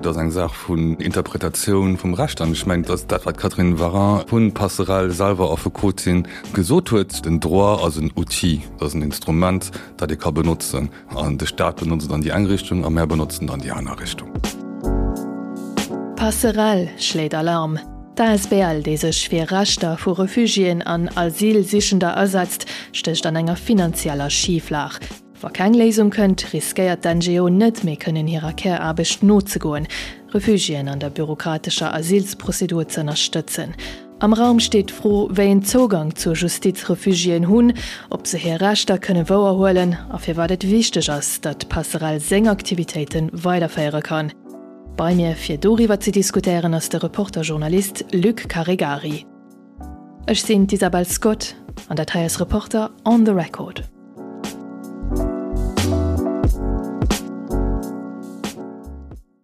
ass eng Saach vun Interpretatioun vum Recht. An ech mengen, et ass dat, wat d'Catherine Warin vu Passerell, selwer Affekotin, gesot huet, Den Droit ass en Outil, et ass en Instrument, dat ee ka benotzen. An de Staat benotzt et an déi eng Richtung a mär benotzen et an déi aner Richtung. Passerell schléit Alarm, D'ASBL, déi sech fir Rechter vu Refugiéen an Asylsichender asetzt, stécht an enger finanzieller Schiflag. Wa keng Léisung kënnt, riskéiert d'NGO net méi kënnen hirer Käraarbecht nozegoen, Refugiéen an der bürokratescher Asylsprozedur z'ënnerstëtzen. Am Raum steet d'Fro, wéi een Zougang zur Justiz Refugiéen hunn, ob se hir Rechter kënne wouerhuelen a firwat et wichteg ass, datt d'Passerell seng Aktivitéite weiderféiere kann. Bei mir fir doriwwer ze diskutéieren ass de Reporter-Journalist Luc Caregari. Ech sinn d'Isabel Scott an dat hei ass Reporter on the Record.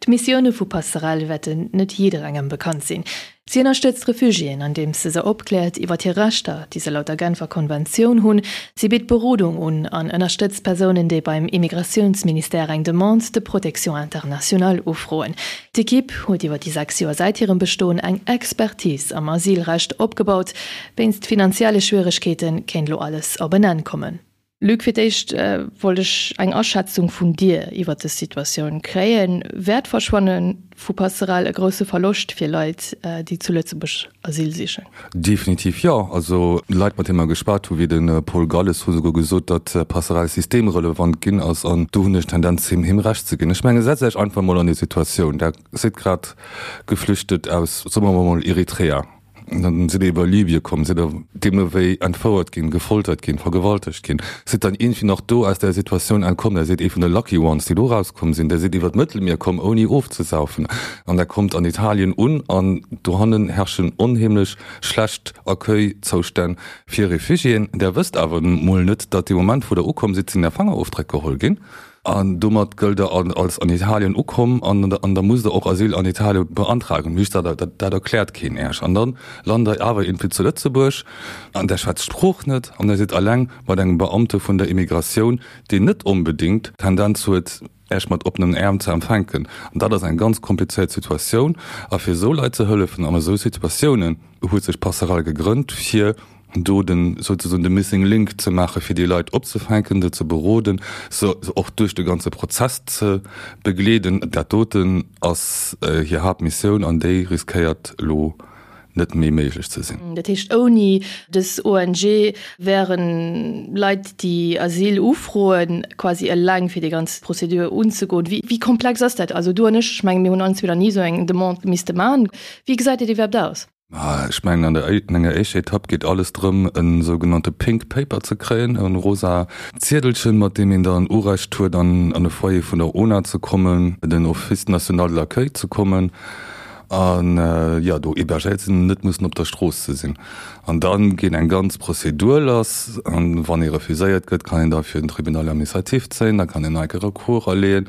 D'Missioune vu Passerell wäerten net jidderengem bekannt sinn. Si ënnerstëtzt Refugiéen, andeems se se opkläert iwwer hir Rechter, déi se laut der Genfer Konventioun hunn. Si bitt Berodung un an ënnerstëtzt Persounen, déi beim Immigratiounsministère eng Demande de protection internationale ufroen. D'Ekipp huet iwwer déi 6 Joer säit hirem Bestoen eng Expertise am Asylrecht opgebaut. Wéinst finanzielle Schwieregkeete kéint elo alles op en Enn kommen. Luc, fir d'éischt wollt ech eng Aschätzung vun dir iwwer dës Situatioun kréien. Wär d'Verschwanne vu Passerell e grousse Verloscht fir Leit, déi zu Lëtzebuerg Asyl sichen? Definitiv jo. Also Leit, mat deene mer geschwat hu wéi de Paul Galles, hu souguer gesot, datt Passerell systemrelevant ginn ass. An do hunn ech d'Tendenz, him him Recht ze ginn. Ech menge setzt Iech einfach emol an déi Situatioun, Der sidd grad geflüchtet aus, soe mer emol, Eritrea. Dann sidd der iwwer Libye komm, sidd der deemno wéi entfouert ginn, gefoltert ginn, vergewaltegt ginn, sidd dann iergendwéi nach do aus där Situatioun entkomm, der sidd ee vun de lucky ones, déi do erauskomm sinn, der sidd iwwer d'Mëttelmier komm ouni ofzesaufen an der kommt an Italien un an dohannen herrschen onheemlech schlecht Accueil-Zoustänn fir Refugiéen. Der wësst awer mol net, datt dee Moment wou der ukomm sidd, sinn är Fangerofdréck geholl ginn. An domat gëllt der als an Italien ukomm an an da musst der och Asyl an Italien beantragen. Just dat, dat, dat erkläert keen Äech. An dann lant der awer iergendwéi zu Lëtzebuerg an der schwätzt d'Sprooch net an der sidd alleng mat engem Beamte vun der Immigratioun, deen net onbedéngt d'Tendenz huet, Äech mat oppenen Äerm ze empfänken. An dat ass eng ganz komplizéiert Situatioun. A fir esou Leit ze hëllefen an esou Situatiounen huet sech Passerell gegrënnt, fir do den souzesoen de missing link ze maachen, fir déi Leit opzefänken, se ze beroden, se och duerch de ganze Prozess ze begleeden. Dat doten ass hir Haaptmissioun an déi riskéiert elo net méi méiglech ze sinn. Dat heescht, ouni dës ONG wäre Leit, déi Asyl ufroen, quasi eleng fir déi ganz Prozedur unzegoen. Wéi komplex ass dat? Also du an ech, ech menge mir hunn allen zwee nach ni esou eng Demande misste maachen. Wéi gesäit dat iwwerhaapt aus? Ech mengen, an der an enger éischter Etapp geet alles drëm, e sougenannte Pink Paper ze kréien, e rosa Ziedelchen, mat deem een dann Urecht huet, an an e Foyer vun der ONA ze kommen, den Office national de l'accueil ze kommen an, jo, do hébergéiert ze sinn, net mussen op der Strooss ze sinn. An da geet eng ganz Prozedur lass. An wann ee refuséiert gëtt, kann een da fir den Tribunal administratif zéien, da kann een nach eng Kéier Recours aleeën.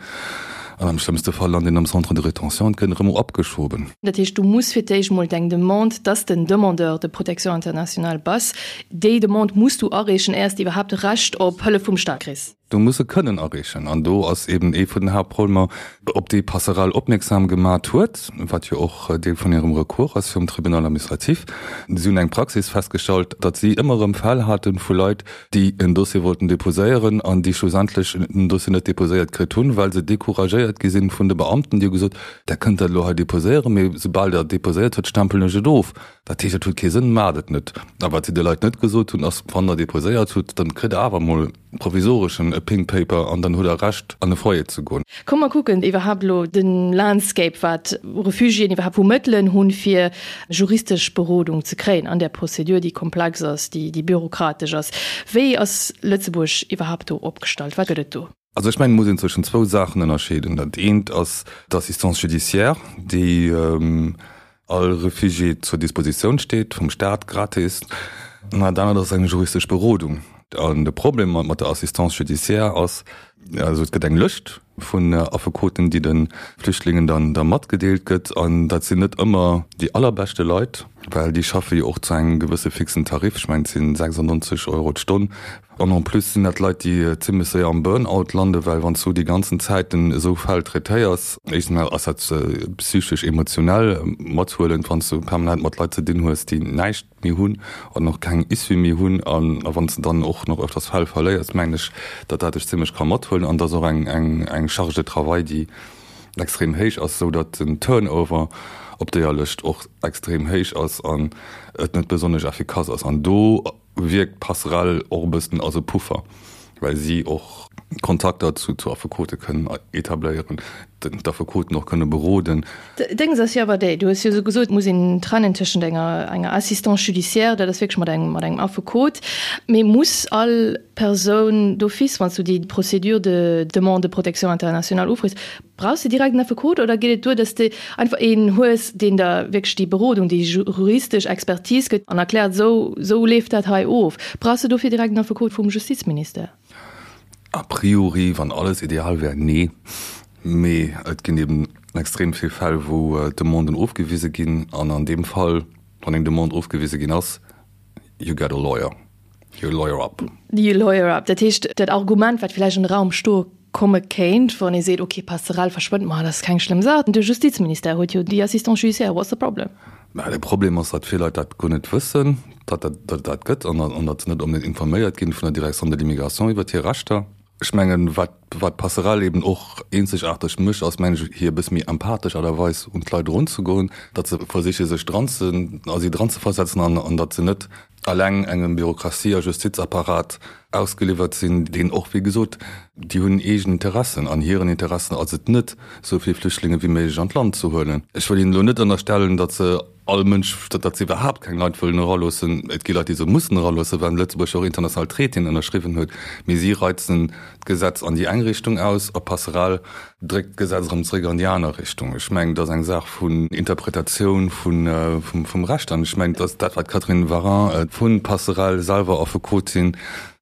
An am schlëmmste Fall lant een am Centre de rétention an gëtt erëm abgeschoben. Dat heescht, du muss fir d'éischt mol deng Demande, dass de Demandeur de protection internationale bass, déi Demande muss du areechen, éiers de iwwerhaapt Recht op Hëllef vum Staat kriss. Du muss se kënnen areechen. An do ass eben ee vun den Haaptproblemer, op déi Passerell opmierksam gemat huet, wat jo och Deel vun hirem Recours ass virum Tribunal administratif. Si hunn eng Praxis festgestallt, datt si ëmmer erëm Fäll hate vu Leit, déi en Dossier wollten déposéieren an déi schlussendlech den Dossier net déposéiert kritt hunn, well se découragéiert gi sinn vun de Beamten, déi hu gesot, Der kënnt dat elo hei déposéieren, mee soubal Der et déposéiert hutt, stempelen ech et of. Dat heescht, et huet kee Sënn, maacht et net. A wat si de Leit net gesot hunn, ass, Wann Der déposéiert hutt, dann kritt Der awer emol provisoreschen e Pink Paper an dann hutt Der Recht, an e Foyer ze goen. Komm mer kucken iwwerhaapt elo de Landscape, wat Refugiéen iwwerhaapt vu Mëttelen hunn, fir juristesch Berodung ze kréien an där Prozedur, déi komplex ass, déi bürokratesch ass. Wéi ass Lëtzebuerg iwwerhaapt do opgestallt? Wat gëtt et do? Also ech mengen, et muss een zwëschen zwou Saachen ënnerscheeden. Dat eent ass d'Assistance judiciaire, déi all Refugié zur Dispositioun steet, vum Staat, gratis. An dat anert ass eng juristesch Berodung. An de Problem mat der Assistance judiciaire ass, also et gëtt eng Lëscht vun Affekoten, déi de Flüchtlingen dann da matgedeelt gëtt, an dat sinn net ëmmer déi allerbeschte Leit. Well déi schaffe jo och zu engem gewësse fixen Tarif, ech mengen et sinn 96 Euro d'Stonn. An en plus sinn dat Leit, déi zimlech séier am Burn-out landen, well wann s du déi ganzen Zäiten esou Fäll traitéiers, éischtens emol ass dat psychesch, emotionell mathuelend, wann s du permanent mat Leit ze dinn hues, déi näischt méi hunn an och keng Issue méi hunn. A wann s de dann och nach öfters Fäll verléiers, mengen ech, datt dat dech zimlech ka mathuelen. An et ass och eng Charge de travail, déi extrem héich ass, esou datt den Turnover op deeër Lëscht och extrem héich ass an et net besonnesch effikass ass. An do wierkt d'Passerelle och e bëssen als e Puffer, well si och Kontakter zu Affekote kënnen etabléieren, d'Affekoten och kënne beroden. Déngs ass jo awer déi, du hues jo esou gesot, et muss een trennen tëschent enger enger Assistance judiciaire, dat ass wierklech mat engem mat engem Affekot, mee muss all Persoun d'office, wann s du déi Procédure de demande de protection internationale ufrees, Brauchs de direkt en Affekot oder geet et duer, dass de einfach een hues, deen der wierklech déi Berodung, déi juristesch Expertise gëtt an erkläert, esou, esou leeft dat hei of? Brauchs de dofir direkt en Affekot vum Justizministère? A priori, wann alles ideal wär, nee. Mee et ginn eben extrem vill Fäll, wou Demanden ofgewise ginn. An an deem Fall, wann eng Demande ofgewise ginn ass, you get a lawyer. You lawyer up. You lawyer up. Dat heescht, dat Argument, wat vläicht an de Raum stoe komme kéint, wann ee seet, okay, Passerell verschwënnt, ma dat ass keng schlëmm Saach, de Justizministère huet jo déi Assistance judiciaire, what's the problem? Mä de Problem ass, datt vill Leit dat guer net wëssen, datt et dat gëtt an datt se net onbedéngt informéiert ginn vun der Direction de l'immigration iwwert hir Rechter. Ech mengen, wat wat d'Passerell eben och eenzegaarteg mécht, ass, mengen ech, hir e bësse méi empathesch Aart a Weis un d'Leit erunzegoen, datt se versiche sech dran ze, a si dranzeversetzen an an datt se net alleng engem Bürokratie a Justizapparat ausgeliwwert sinn, deen och, wéi gesot, déi hunn eegen Interessen an hiren Interessen ass et net, esou vill Flüchtlinge wéi méiglech an d'Land ze huelen. Ech wëll hinnen elo net ënnerstellen, datt se all Mënsch, datt se iwwerhaapt keng Leit wëllen eraloossen. Et gi Leit, déi se mussen eraloossen, well Lëtzebuerg jo och international Traitéen ënnerschriwwen huet. Mee si reizen d'Gesetz an déi eng Richtung aus a Passerell dréckt d'Gesetz erëm zréck an déi aner Richtung. Ech mengen, et ass eng Saach vun Interpretatioun vum Recht. An ech mengen, et ass dat, wat d'Catherine Warin vu Passerell, selwer Affekotin,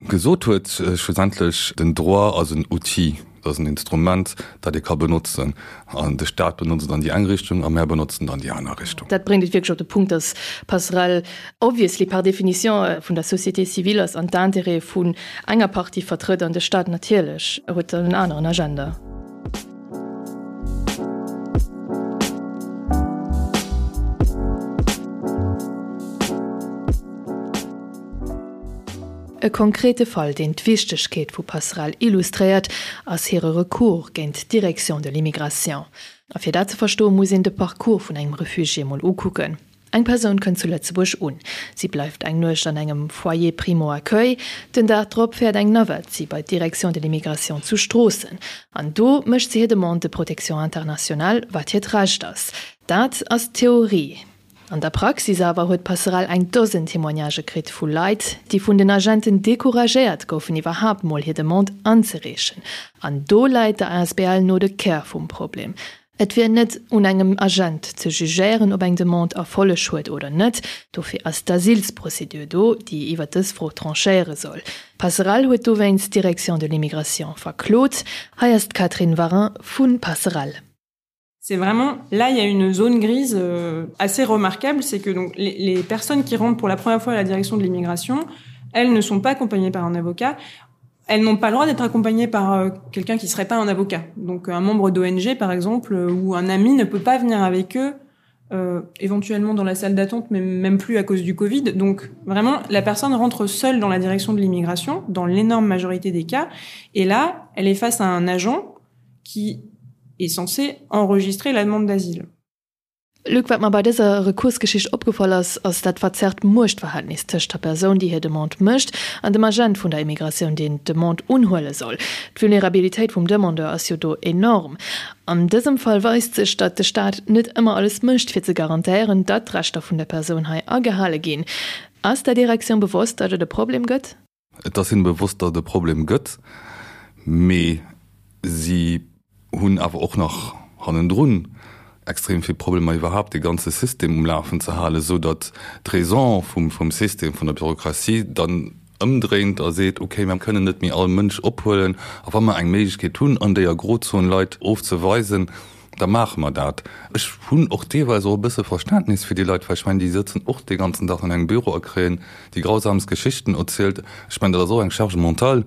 gesot huet, schlussendlech, den Droit ass en Outil, et ass en Instrument, dat ee ka benotzen. An de Staat benotzt et an déi eng Richtung a mär benotzen et an déi aner Richtung. Dat bréngt et wierklech op de Punkt, dass Passerell obviously par définition vun der Société civile ass an d'Intérêtë vun enger Partie vertrëtt an de Staat natierlech huet dann en aneren Agenda. E konkrete Fall, deen d'Wichtegkeet vu Passerell illustréiert, ass hire Recours géint d'Direction de l'immigration. A fir dat ze verstoen, muss een de Parcours vun engem Refugié mol ukucken. Eng Persoun kënnt zu Lëtzebuerg un. Si bleift eng Nuecht an engem Foyer primo-accueil. Den Dag drop fäert eng Navette si bei d'Direction de l'immigration zu Stroossen. An do mécht si hir Demande de protection internationale, wat hiert Recht ass. Dat ass d'Theorie. An der Praxis awer huet d'Passerell eng Dosen Témoignagë kritt vu Leit, déi vun den Agenten decouragéiert goufen, iwwerhaapt mol hir Demande anzereechen. An do läit der asbl no de Kär vum Problem. Et wier net un engem Agent ze jugéieren, ob eng Demande Erfolleg huet oder net. Dofir ass d'Asylsprozedur do, déi iwwer dës Fro tranchéiere soll. Passerell huet dowéinst d'Direction de l'immigration verklot. Hei ass d'Catherine Warin vu Passerell. C'est vraiment là il y a une zone grise euh, assez remarquable, c'est que donc les, les personnes qui rentrent pour la première fois à la direction de l'immigration, elles ne sont pas accompagnées par un avocat. Elles n'ont pas le droit d'être accompagnées par euh, quelqu'un qui serait pas un avocat. Donc un membre d'ONG par exemple euh, ou un ami ne peut pas venir avec eux euh, éventuellement dans la salle d'attente mais même plus à cause du Covid. Donc vraiment la personne rentre seule dans la direction de l'immigration dans l'énorme majorité des cas et là elle est face à un agent qui est censé enregistrer la demande d'asile. Luc, wat mer bei dëser Rekursgeschicht opgefall ass, ass dat verzerrt Muechtverhältnis tëscht der Persoun, déi hir Demande mécht, an dem Agent vun der Immigratioun, deen d'Demande unhuele soll. D'Vulnerabilitéit vum Demandeur ass jo do enorm. An dësem Fall weist sech, datt de Staat net ëmmer alles mécht, fir ze garantéieren, datt d'Rechter vun der Persoun hei agehale ginn. Ass der Direktioun bewosst, datt et e Problem gëtt? Et ass hinne bewosst, datt et e Problem gëtt, mee si hunn awer och nach hannendrun extrem vill Problemer iwwerhaapt dee ganze System um Lafen ze halen, esou datt d'Raison vum System, vun der Bürokratie dann ëmdréint a seet, okay, mir kënnen net méi all Mënsch ophuelen a wa mer eng Méiglechkeet hunn, an déier Grozon Leit ofzeweisen. Da maache mer dat. Ech hunn och deelweis och e bësse Verständnis fir déi Leit, well ech mengen, déi sëtzen och dee ganzen Dag an engem Büro a kréien déi grausamst Geschichten erzielt. Ech mengen, dat ass och eng Charge mentale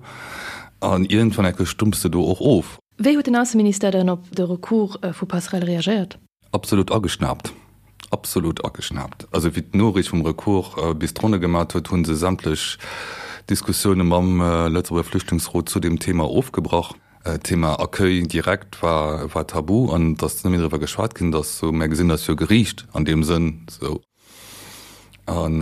an iergendwann enke stumpfs de do och of. Wéi huet den Ausseministère dann op de Recours vu Passerell reagéiert? Absolut ageschnaapt. Absolut ageschnaapt. Also wéi d'Noriicht vum Recours bis d'Ronne gemat huet, hu se sämtlech Diskussioune mam Lëtzebuerger Flüchtlingsrot zu deem Thema ofgebrach. D'Thema Accueil direct war war tabu an et ass net méi driwwer geschwat ginn. Et ass sou, mär gesinn eis jo geriicht an deem Sënn sou. An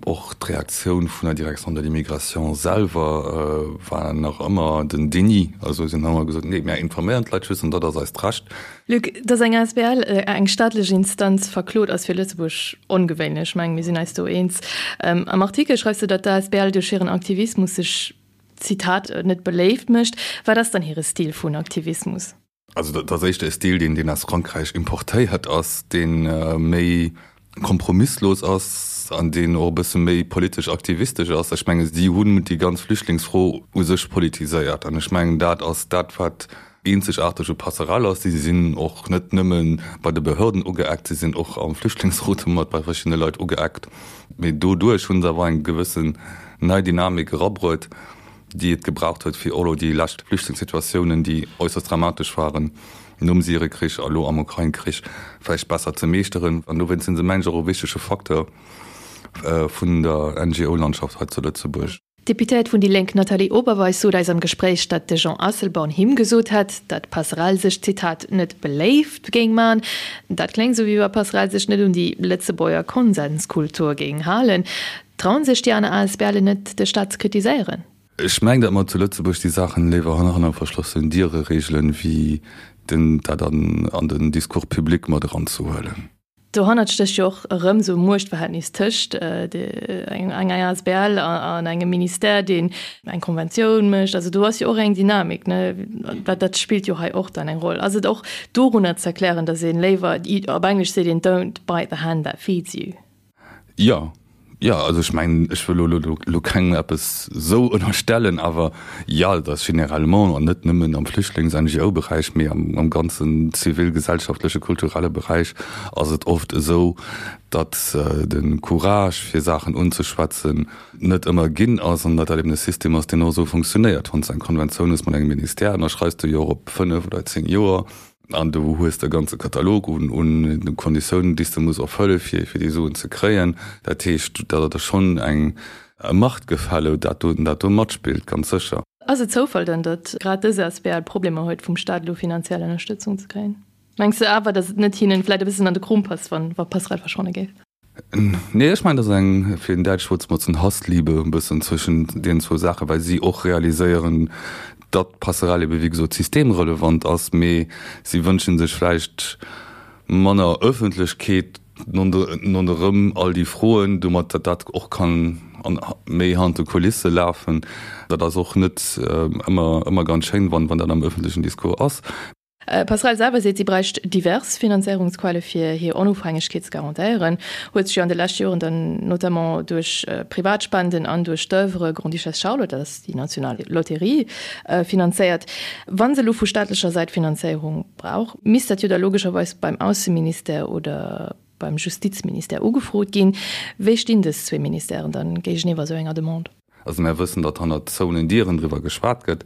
och d'Reaktioun vun der Direction de l'immigration selwer war nach ëmmer den Déni. Also si hunn ëmmer gesot, nee, mär informéieren d'Leit just an dat ass eist Recht. Luc, dass eng asbl eng staatlech Instanz verklot, ass fir Lëtzebuerg ongewéinlech. Ech mengen, mir sinn eis do eens. Am Artikel schreifs de, datt d'asbl duerch hiren Aktivismus sech, Zitat, net beléift mécht. Wat ass dann hire Stil vun Aktivismus? Also dat ass éischter e Stil, deen deen aus Frankräich importéiert ass, dee méi kompromisslos ass an deen och e bësse méi politesch aktivistesch ass. Ech menge si hunn déi ganz Flüchtlingsfro u sech politiséiert an ech mengen dat ass dat wat eenzegaarteg u Passerelle ass. Si sinn och net nëmme bei de Behörden ugeeckt, si sinn och am Flüchtlingsrot mat bei verschiddene Leit ugeeckt. Mee doduerch hu se awer eng gewëssen nei Dynamik erabruet. déi et gebraucht huet, fir elo déi lescht Flüchtlingssituatiounen, déi äusserst dramatesch waren, nom Syrekrich a lo am Ukrain-Krich, vläicht besser ze meeschteren. An dowéinst sinn se, mengen ech, och e wichtege Facteur vun der NGO-Landschaft hei zu Lëtzebuerg. D'Deputéiert vun déi Lénk Nathalie Oberweis sot eis am Gespréich, datt de Jean Asselborn him gesot hätt, datt Passerell sech, Zitat, net beléift géing man. Dat kléngt esou, wéi wa Passerell sech net un déi Lëtzebuerger Konsenskultur géing halen. Trauen sech déi aner ASBLen net, de Staat ze kritiséieren? Ech mengen, datt mer zu Lëtzebuerg déi Saachen léiwer hanner verschlossenen Diere regelen, wéi dat an den Discours public mat eranzehuelen. Dohannert stécht jo och erëm esou e Muechtverhältnis tëscht enger asbl an engem Ministère, deen eng Konventioun mécht. Also do ass jo och eng Dynamik, ne? Dat spillt jo hei och dann eng Roll. Ass et och dorunner ze erklären, datt ee léiwer, op Englesch seet een, don't bite the hand that feeds you? Jo, jo, also ech mengen, ech wëll elo elo kengem eppes esou ënnerstellen, awer jo, et ass généralement, an net nëmmen am Flüchtlings-NGO-Beräich, mee am ganzen zivilgesellschaftleche, kulturelle Beräich ass et oft esou, datt de Courage fir Saachen unzeschwätzen net ëmmer ginn ass an datt dat eben e System ass, deen och esou funktionéiert. Wann s de eng Konventioun hues mat engem Ministère, ënnerschreifs de jo och op fënnef oder zéng Joer. An du hues de ganze Katalog un Konditiounen, déi s de muss erfëlle fir fir déi Suen ze kréien. Dat heescht, dat ass schonn eng Machtgefälle, dat do dat do matspillt, ganz sécher. Ass et Zoufall dann, datt grad dës asbl Problemer huet, vum Staat elo finanziell Ënnerstëtzung ze kréien? Mengs de awer, datt et net hinnen vläit e bëssen an de Krom passt, wann wa Passerell verschwanne géif? Nee, ech mengen, dat ass eng, fir en däitscht Wuert ze benotzen, Hassliebe e bëssen zwëschen deenen zwou Saachen, well si och realiséieren, datt d'Passerell ebe wéi gesot systemrelevant ass, mee si wënsche sech vläicht manner Ëffentlechkeet ronderëm all déi Froen, domat datt dat och kann méi hannert de Kulisse lafen. Dat ass och net ëmmer, ëmmer ganz schéin, wann dat am ëffentlechen Discours ass. Passerell selwer seet, si bräicht divers Finanzéierungsquelle fir hir Onofhängegkeet ze garantéieren, huet sech jo an de leschte Joren dann notamment duerch Privatspenden an duerch d'Oeuvre Grande-Duchesse Charlotte, dat ass déi national Lotterie, finanzéiert. Wa se elo vu staatlecher Säit Finanzéierung brauch, misst dat jo da logescherweis beim Ausseministère oder beim Justizministère ugefrot ginn. Wéi stinn dës zwee Ministèren dann géigeniwwer esou enger Demande? Also mär wëssen, datt hannert zouenen Dieren driwwer geschwat gëtt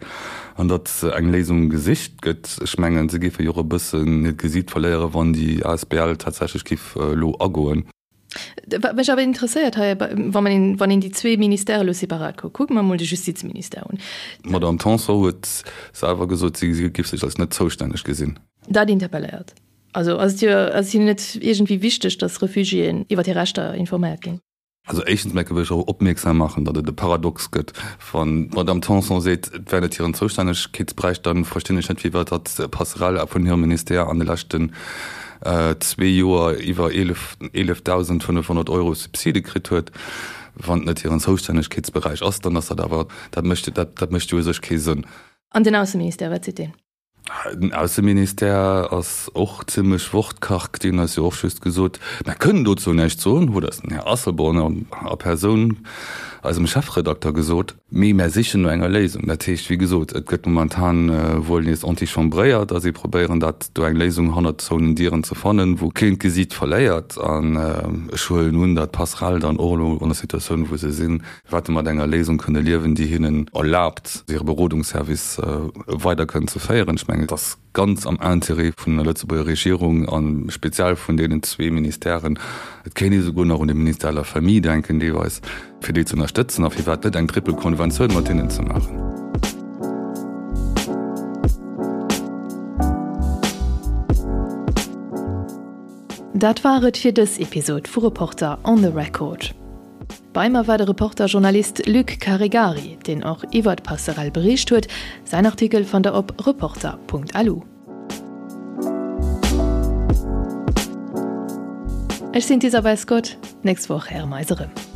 an datt eng Léisung gesicht gëtt. Ech mengen, se géife jo och e bëssen hiert Gesiit verléieren, wann déi asbl tatsächlech géif elo agoen. Wat mech awer interesséiert hei, wann een, wann een déi zwee Ministèrë elo separat kuckt, kucke mer emol de Justizministère un. D'Madame Tanson huet selwer gesot, si géif sech als net zoustänneg gesinn. Dat interpelléiert. Also ass et jo, ass et hinnen net iergendwéi wichteg, datt Refugiéen iwwer hir Rechter informéiert ginn? Also éischtens mol wëll ech och opmierksam maachen, datt et e Paradox gëtt, wann d'Madame Tanson seet, et wär net hiren Zoustännegkeetsberäich, da verstinn ech net, firwat datt d'Passerelle vun hirem Ministère an de leschten zwee Joer iwwer 11.500 Euro Subside kritt huet. Wann et net hiren Zoustännegkeetsberäich ass, dann ass dat awer, dat mécht, dat mécht jo u sech kee Sënn. An den Ausseministère, wat seet deen? Den Ausseministère ass och zimlech wortkarg. Deen huet jo och just gesot, Mer kënnen dozou näischt soen, huet eis den Här Asselborn a Persoun, eisem Chefredakter, gesot. Mee mer sichen no enger Léisung. Dat heescht, wéi gesot, et gëtt momentan wuel nees antichambréiert a si probéieren dat do eng Léisung hannert zouenen Dieren ze fannen, wou keen d'Gesiit verléiert. An ech huelen un, datt d'Passerelle dann och elo an der Situatioun, wou se sinn, wäerte mat enger Léisung kënne liewen, déi hinnen erlaabt, hire Berodungsservice weider kënnen ze féieren. Ech mengen, et ass ganz am Intérêt vun der Lëtzebuerger Regierung a speziell vun deenen zwee Ministèren, et kéint ee souguer nach un de Ministère de la Famille denken deelweis, fir déi ze ënnerstëtzen a firwat net eng triple Konventioun mat hinnen ze maachen. Dat war et fir dës Episod vu Reporter on the Record. Bei mer war de Reporter-Journalist Luc Caregari, deen och iwwer d'Passerell bericht huet. Säin Artikel fannt der op reporter.lu. Ech sinn d'Isabel Scott, d'nächst Woch héiere mer eis erëm.